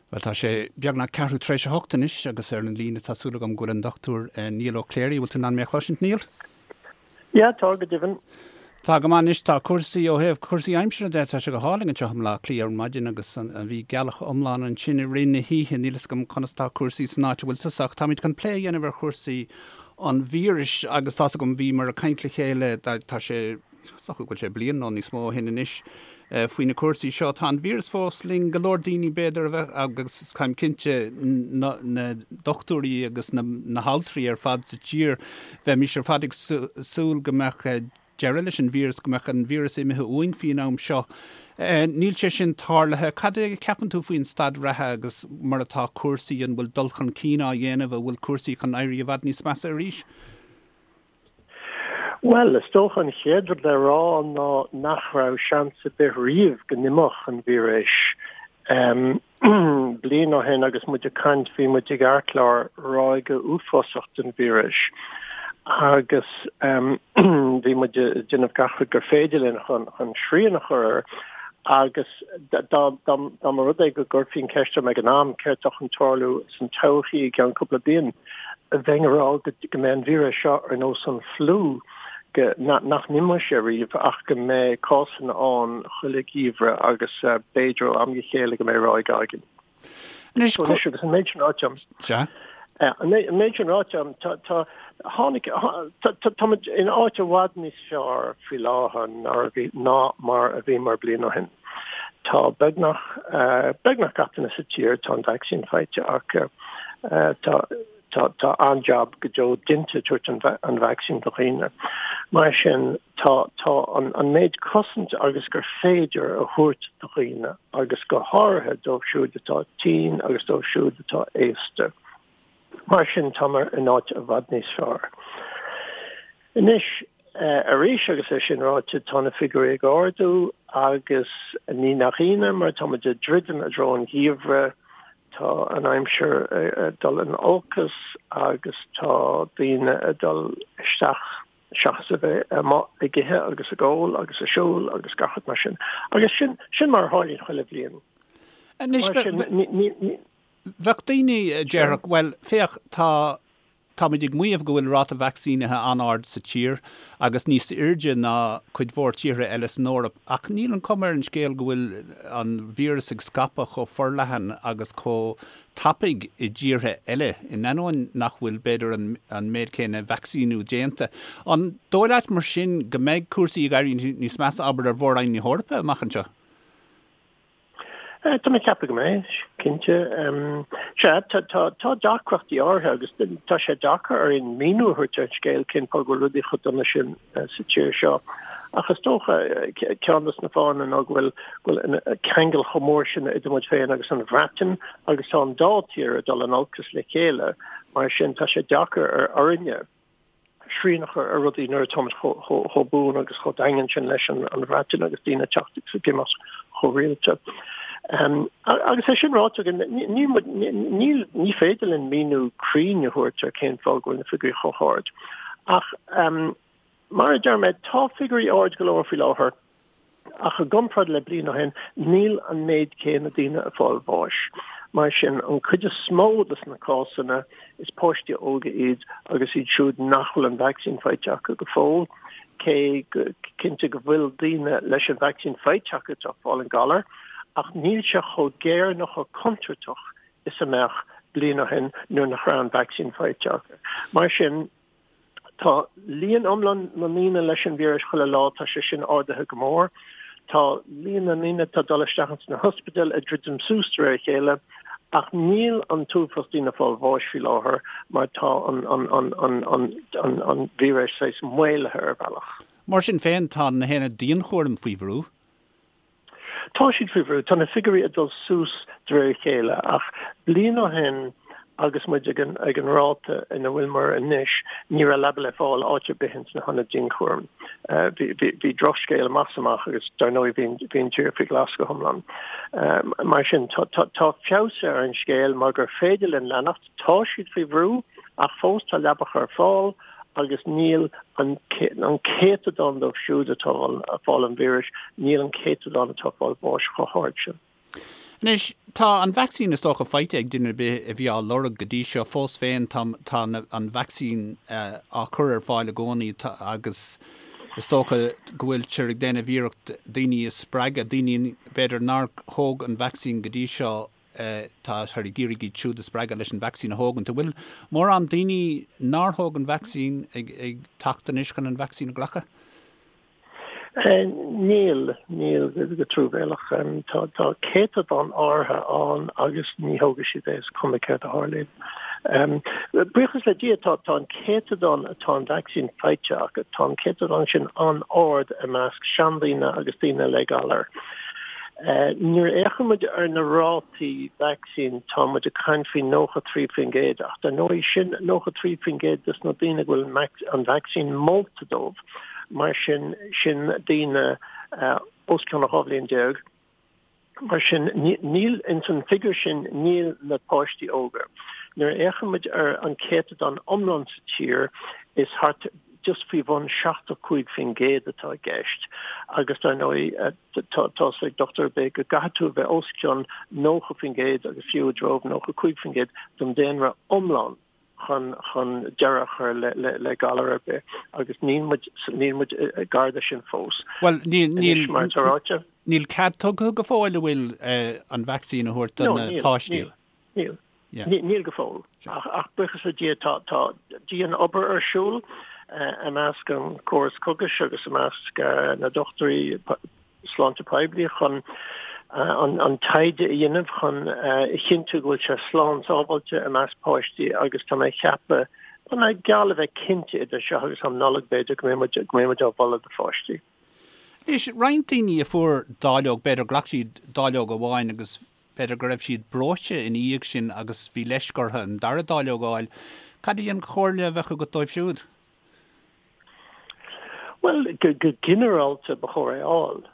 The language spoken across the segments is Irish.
Bhuel, tá sé beagnach ceathrú tar éis a hocht anois agus ar an líne tá súil agam go bhfuil an Dr Niall Ó Cléirigh. Bhfuil tú in ann mé a chloisint, Niall? Yeah, tá, go deimhin. Tá go maith anois. Tá cúrsaí, ó thaobh cúrsaí aimsire de, tá sé go hálainn anseo i mBleá Cliath ar maidin agus bhí gealach iomlán ansin i rith na hoíche. Níl fhios agam conas tá cúrsaí san áit a bhfuil tusa ach táimid chun plé a dhéanamh ar chúrsaí an víris agus tá's agam bhíomar ag caint le chéile, tá sé, Is dócha go bhfuil sé bliain nó níos mó ó shin anois faoi na cúrsaí seo. Tá an víreas fós linn, go leor daoine b'fhéidir a bheith, agus táim cinnte na dochtúirí agus na haltraí ar fad sa tír, bheimis ar fad ag súil go mbeadh deireadh leis an víreas, go mbeadh an víreas imithe uainn faoin am seo. Níl sé sin tarlaithe. Cad é a cheapann tú faoin staid reatha agus mar atá cúrsaí, an bhfuil dul chun cinn á dhéanamh, an bhfuil cúrsaí chun éirí i bhfad níos measa arís? Bhuel, is dócha an chéad rud le rá ná nach raibh seans ar bith riamh go n-imeodh an víreas. Bliain ó shin agus muid ag caint bhí muid ag amharc ar ráig uafásach den víreas agus bhí muid ag déanamh gach rud gur féidir linn chun srian a chur air agus dá mba rud é go gcuirfí an ceist orm ag an am céard atá chun tarlú san todhchaí i gceann cúpla bliain, bheinn ag rá go mbeidh an víreas seo ar nós an fliú, go nach n-imeoidh sé riamh ach go mbeidh cásanna ann chuile gheimhreadh agus b'fhéidir ó am go chéile go mbeidh ráig againn. Anois, Anois agus an méid sin ráite agam. Sea. An méid sin ráite agam, tá, tá, tháinig, tá, tá, táimid in áit i bhfad níos fearr faoi láthair ná mar a bhíomar bliain ó shin. Tá beagnach, beagnach gach duine sa tír, tá an vacsaín faighte acu. Tá, tá, tá an-jab go deo déanta ag tabhairt an vacsaín do dhaoine. Mar sin, tá, tá an, an méid cosaint agus gur féidir a thabhairt do dhaoine agus go háirithe dóibh siúd atá tinn agus dóibh siúd atá aosta. Mar sin, táimid in áit i bhfad níos fearr. Anois, arís, agus é sin ráite, tá na figiúirí ag ardú agus ní nach ionadh mar táimid ag druidim i dtreo an gheimhridh, tá an aimsir ag dul in olcas agus tá daoine ag dul isteach seachas a bheith amuigh ag ithe agus ag ól agus ag siúl agus gach rud mar sin. Agus sin, sin mar a tharlaíonn chuile bhliain. Anois, Mar sin, ní, ní, ní. Bheadh daoine a déarfadh, bhuel, féach, tá, táimid ag maíomh go bhfuil ráta vacsaínithe an-ard sa tír agus níos airde ná cuid mhór tíortha eile san Eoraip, ach níl an cuma ar an scéal go bhfuil an víreas ag scaipeadh chomh forleathan agus chomh tapaidh i dtíortha eile, in ainneoin nach bhfuil, b'fhéidir, an méid céanna vacsaíniú déanta. An dóigh leat, mar sin, go mbeidh cúrsaí ag éirí níos measa, abair, ar Mhór-Roinn na hEorpa amach anseo? Tá mé ag ceapadh go mbeidh, cinnte. Sea, tá deacrachtaí áirithe agus tá sé deacair orainn míniú a thabhairt ar an scéal cén fáth go bhfuil rudaí chomh dona sin sa tír seo. Ach is dócha, ceann de na fáthanna ná go bhfuil go bhfuil an ceangal chomh mór sin idir muid féin agus an Bhreatain agus tá an dá tír ag dul in olcas le chéile, mar sin tá sé deacair orainne. srian a chur ar rudaí nuair atáimid chomh buan agus chomh daingean sin leis an Bhreatain agus daoine ag teacht agus ag imeacht chomh rialta. Agus é sin ráite againn, níl, ní féidir linn míniú cruinn a thabhairt ar cén fáth go bhfuil na figiúirí chomh hard. Ach mar a deir mé, tá figiúirí ard go leor faoi láthair. Ach i gcomparáid le bliain ó shin, níl an méid céanna daoine ag fáil bháis. Mar sin, an cuid is mó de na cásanna, is páistí óga iad agus iad siúd nach bhfuil an vacsaín faighte acu go fóill, cé go cinnte go bhfuil daoine leis an vacsaín faighte acu atá ag fáil an galar, ach níl sé chomh géar nó chomh contúirteach is a mbeadh bliain ó shin nuair nach raibh an vacsaín faighte acu. Mar sin, Tá líon iomlán na ndaoine leis an víreas chuile lá, tá sé sin ardaithe go mór. Tá líon na ndaoine atá ag dul isteach ins na hospidéil ag druidim suas de réir a chéile, ach níl an t-uafás daoine ag fáil bháis faoi láthair mar tá an an víreas saghas maolaithe ar bhealach. Mar sin féin, tá na haonaid dianchúraim faoi bhrú. Tá siad faoi bhrú. Tá na figiúirí ag dul suas de réir a chéile ach bliain ó shin agus muid ag an ag an ráta ina bhfuileamar anois, ní raibh leaba le fáil áit ar bith ins na hionaid dianchúraim. Bhí bhí bhí drochscéal amach is amach agus dar ndóigh bhí bhí an tír faoi ghlas go hiomlán. Mar sin tá tá tá feabhas ar an scéal mar gur féidir linn leanacht. Tá siad faoi bhrú ach fós tá leabacha ar fáil agus níl an céatadán dóibh siúd atá ag fáil an víris, níl an céatadán atá ag fáil bháis chomh hard sin. Anois, tá an vacsaín is dócha faighte ag duine ar bith a bhí á lorg go dtí seo. Fós féin, tá tá an vacsaín á cur ar fáil i gcónaí agus is dócha go bhfuiltear ag déanamh iarracht daoine a spreagadh, daoine b'fhéidir nár thóg an vacsaín go dtí seo, táthar ag iarraidh iad siúd a spreagadh leis an vacsaín a thógaint. An bhfuil mórán daoine nár thóg an vacsaín ag ag teacht anois chun an vacsaín a ghlacadh? Níl, níl, go truamhéalach. Tá, tá céatadán áirithe ann agus ní thógfaidh siad é is cuma céard a tharlaíonn. Buíochas le Dia tá, tá an céatadán atá an vacsaín faighte acu, tá an céatadán sin an-ard i measc seandaoine agus daoine le galar. Nuair a fhéachann muid ar na rátaí vacsaín tá muid ag caint faoi 93% ach dar ndóigh sin 93% des na daoine go bhfuil an vacsaín molta dóibh. Mar sin, sin daoine os cionn 12 bhliain. Mar sin, níl, ins an figiúr sin, níl na páistí óga. Nuair a fhéachann muid ar an céatadán iomlán sa tír, is thart just faoi bhun 75% atá i gceist. Agus dar ndóigh, tá 'fhios ag dochtúir ar bith go gcaithfidh tú a bheith os cionn 90% agus fiú i dtreo 95% den daonra iomlán. chun chun deireadh a chur le le le galar ar bith agus níl muid níl muid gar do sin fós. Bhuel níl níl mar atá ráite. Níl cead tugtha go fóill an bhfuil an vacsaín a thabhairt do na páistí. Níl níl níl go fóill ach ach buíochas le Dia tá tá dian-obair ar siúl i measc an córas cógais agus i measc na dochtúirí sláinte poiblí chun an taighde a dhéanamh chun a chinntiú go bhfuil sé slán sábháilte i measc páistí agus tá mé ag ceapadh, tá mé geall le bheith cinnte idir seo agus am Nollag b'fhéidir go mbeidh muid, go mbeidh muid á mholadh do pháistí. Anois, roinnt daoine a fuair dáileog, b'fhéidir ghlac siad dáileog amháin agus b'fhéidir go raibh siad breoite ina dhiaidh sin agus bhí leisc orthu an dara dáileog a fháil. Cad í an chomhairle a bheadh agat dóibh siúd? Bhuel, go ginearálta ba chóir é a fháil.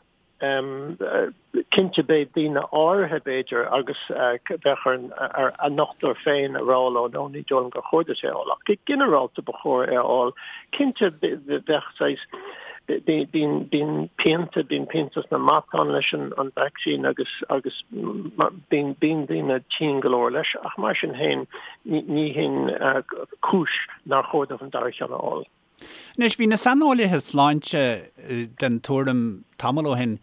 Cinnte beidh daoine áirithe b'fhéidir agus bheadh ar a ndochtúir féin a rá leo no ní dóigh liom gur chóir duit é a fháil ach go ginearálta ba chóir é a fháil. Cinnte bheadh saghas bíonn bíonn pianta bíonn pianta sna matáin leis an an vacsaín agus agus bíonn bíonn daoine tinn go leor leis ach mar sin féin ní hin cúis nár chóir dóibh an dara ceann a fháil. Anois, bhí na saineolaithe sláinte den tuairim tamall ó shin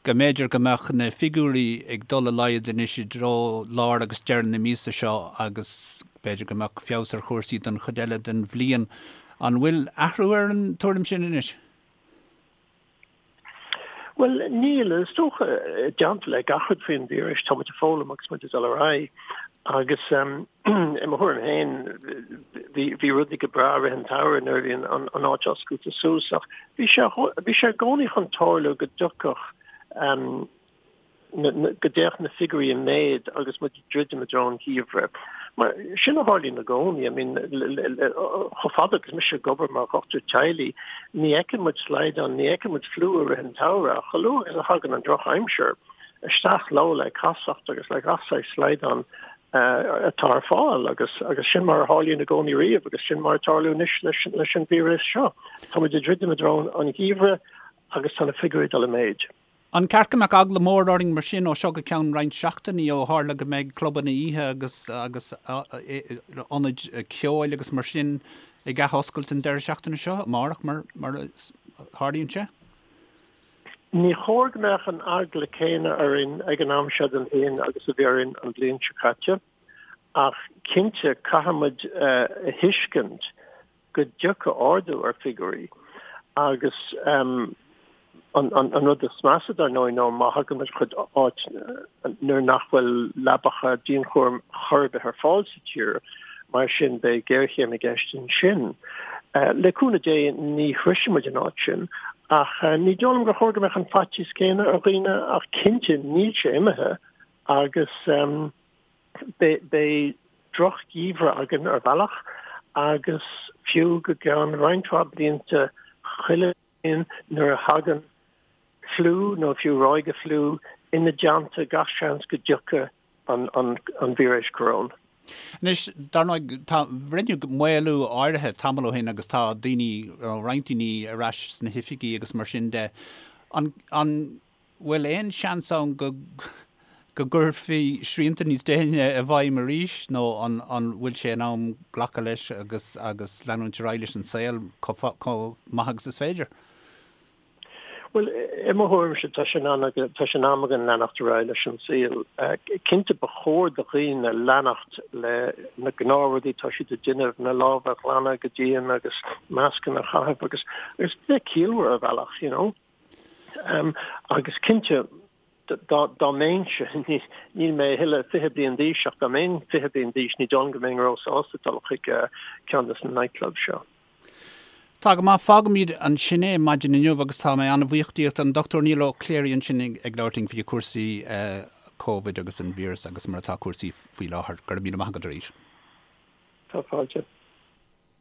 go mb'fhéidir go mbeadh na figiúirí ag dul i laghad anois i dtreo lár agus deireadh na míosa seo agus b'fhéidir go mbeadh feabhas ar chúrsaí don chuid eile den bhliain. An bhfuil athrú ar an tuairim sin anois? Bhuel, níl. Is dócha, i dteannta le gach rud faoin víreas, tá muid ag foghlaim agus muid ag dul ar aghaidh. Agus i mo thuairim féin, bhí bhí rudaí go breá i rith an tsamhraidh nuair a bhí an an áit oscailte suas ach bhí sé bhí sé i gcónaí chun tarlú go dtiocfadh go dtéadh na figiúirí i méad agus muid ag druidim i dtreo an gheimhridh. Mar sin a tharlaíonn i gcónaí. I mean, chomh fada agus mise ag obair mar dhochtúir teaghlaigh, ní fheiceann muid slaghdán, ní fheiceann muid fliú i rith an tsamhraidh, ach chomh luath agus a thagann an drochaimsir, isteach leo le casacht agus le gach saghas slaghdán atá ar fáil agus agus sin mar a tharlaíonn i gcónaí riamh agus sin mar atá ag tarlú anois leis leis an víreas seo. Tá muid ag druidim i dtreo an gheimhridh agus tá na figiúirí ag dul i méid. An ceart go mbeadh eagla mór orainn mar sin ó seo go ceann roinnt seachtainí ó tharla go mbeidh clubanna oíche agus agus ionaid ceoil agus mar sin ag athoscailt an deireadh seachtaine seo, amárach mar mar a tharlaíonn sé? Ní chóir go mbeadh an eagla céanna orainn ag an am seo den bhliain agus a bhí orainn an bhliain seo caite ach cinnte caithfidh muid a thuiscint go dtiocfaidh ardú ar figiúirí agus an rud is measa dar ndóigh ná má thagann muid chuig áit nuair nach bhfuil leabacha dianchúraim chor ar bith ar fáil sa tír, mar sin beidh géarchéim i gceist ansin. Le cúnamh Dé ní shroisfidh muid an áit sin ach ní dóigh liom gur chóir go mbeadh an faitíos céanna ar dhaoine ach cinnte níl sé imithe agus Beidh drochgheimhreadh againn ar bhealach agus fiú go gceann roinnt mhaith blianta chuile bhliain nuair a thagann fliú nó fiú ráig fliú ina dteannta gach seans go dtiocfaidh an víreas coróin. Anois, dar ndóigh, tá, rinneadh maolú áirithe tamall ó shin agus tá daoine, roinnt daoine ar ais sna hoifigí agus mar sin de. An, an. bhfuil aon seans ann go go gcuirfí srianta níos déine i bhfeidhm arís nó an an bhfuil sé in am glacadh leis agus agus leanúint ar aghaidh leis an saol chomh maith agus is féidir? Bhuel, i mo thuairimse, tá sé in tá sé in am againn leanacht ar aghaidh leis an saol. Cinnte, ba chóir do dhaoine leanacht le na gnáthrudaí atá siad ag déanamh, na lámha a ghlanadh go dian agus mascanna a chaitheamh agus agus bheith ciallmhar ar bhealach, you know. Agus cinnte, dá dá mbeinnse, níl mé a thuilleadh 20 bliain d'aois ach dá mbeinn 20 bliain d'aois ní dóigh liom go mbeinn róshásta dul chuig ceann de na nightclubs seo. Tá go maith, fágfaimid ansin é maidin inniu agus tá mé an-bhuíoch díot, an Dr Niall Ó Cléirigh ansin ag labhairt linn faoi chúrsaí Covid agus an víreas agus mar atá cúrsaí faoi láthair. Go raibh míle maith agat arís. Tá fáilte.